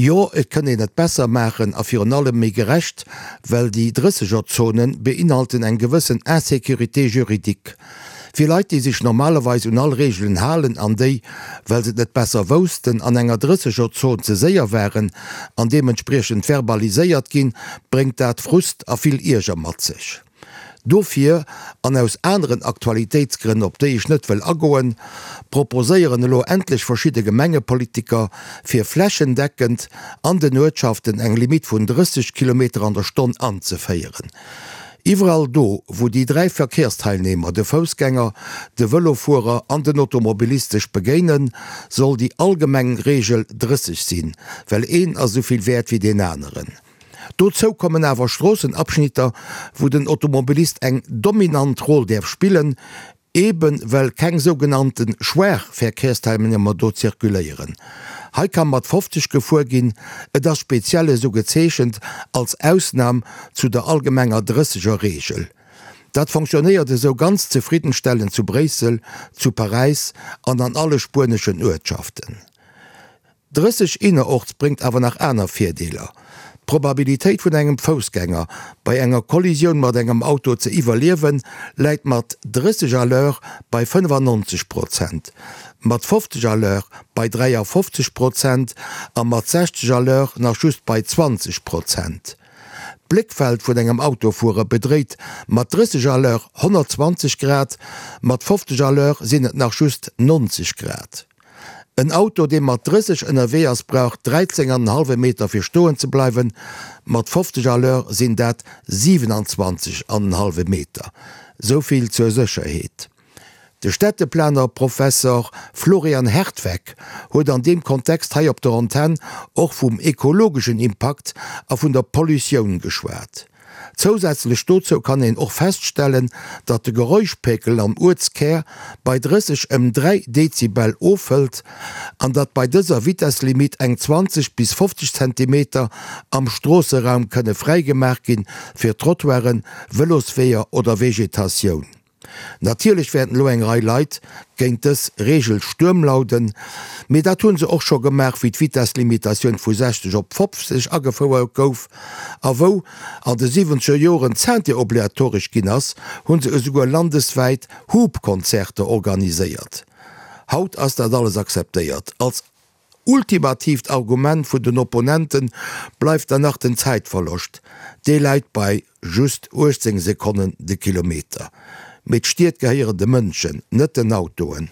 Jo, et kënn een et besser maachen a virun allem méi gerecht, well déi Drëssegerzonen beinhalten eng gewëssen Insécurité juridique. Fir Leit, déi sech normalerweis un all Reegelen halen an déi, well se et net besser woussten, an enger Drëssegerzon ze séier waren an deementspriechend verbaliséiert ginn, bréngt dat Frust a vill Ierger mat sech. Dofir, an aus aneren Aktualitéitsgrënn, op déi ech net wëll agoen, proposéieren elo endlech verschidde Gemengepolitiker, fir flächendeckend an den Uertschaften eng Limitt vun 30 Kilometer an der Stonn anzeféieren. Iwwerall do, wou déi 3 Verkehrsteilnehmer, de Foussgänger, de Vëlofuerer an den Automobilist sech begéinen, soll déi allgemeng Reegel 30 sinn, well een ass esou vill wäert wéi deen aneren. Dozou kommen awer Stroossenabschnitter, wou den Automobilist eng dominant Roll däerf spillen, eebe well keng sougenannte schwaach Verkehrsteilnehmer do zirkuléieren. Hei ka mat 50 gefuer ginn, et ass speziell esou gezeechent als Ausnam zu der allgemenger 30er Reegel. Dat fonctionnéiert esou ganz zefriddenstellend zu Bréissel, zu Paräis an an alle spueneschen Uertschaften. 30 innerorts bréngt awer nach aner Virdeeler, D'Probabilitéit vun engem Foussgänger bei enger Kollisioun mat engem Auto ze iwwerliewen, läit mat 30 à l'heure bei 95 Prozent, mat 50 à l'heure bei 53 Prozent a mat 60 à l'heure nach just bei 20 Prozent. D'Bléckfeld vun engem Autofuerer bedréit mat 30 à l'heure 120 Grad, mat 50 à l'heure sinn et nach just 90 Grad. En Auto, dee mat 30 ënnerwee ass, brauch 13 an en hallwe Meter fir stoen ze bleiwen, mat 50 à l'heure sinn dat 27 an en hallwe Meter. Sou vill zur Sécherheet. De Städteplaner Professor Florian Hertweck huet an deem Kontext hei op der Antenn och vum ekologeschen Impakt a vun der Pollutioun geschwat. Zousätzlech dozou kann een och feststellen, datt de Geräuschpekel am Uertskär bei 30 ëm 3 Dezibel ofhëlt an datt bei dëser Vitesslimitt eng 20 bis 50 Zentimeter am Stroosseraum kënne fräigemaach ginn fir Trottoiren, Vëlosweeër oder Vegetatioun. Natierlech wäerten elo eng Rei Leit géint dës Reegel Stuerm lauden, mee dat hu se och scho gemaach, wéi d'Vitesslimitatioun vu 60 op 50 agefouert gouf a wou an de siwwenzeger Joren d'Ceinture obliatoresch ginn ass, hu se esouguer landeswäit Hupkonzerter organiséiert. Haut ass dat alles akzeptéiert als. Ultimatiivt Argument vun den Opponente bleift dann nach den Zäitverloscht, dee läit bei just 18 Sekonnen de Kilometer. Mee d'Stied gehéieren de Mënschen, net den Autoen.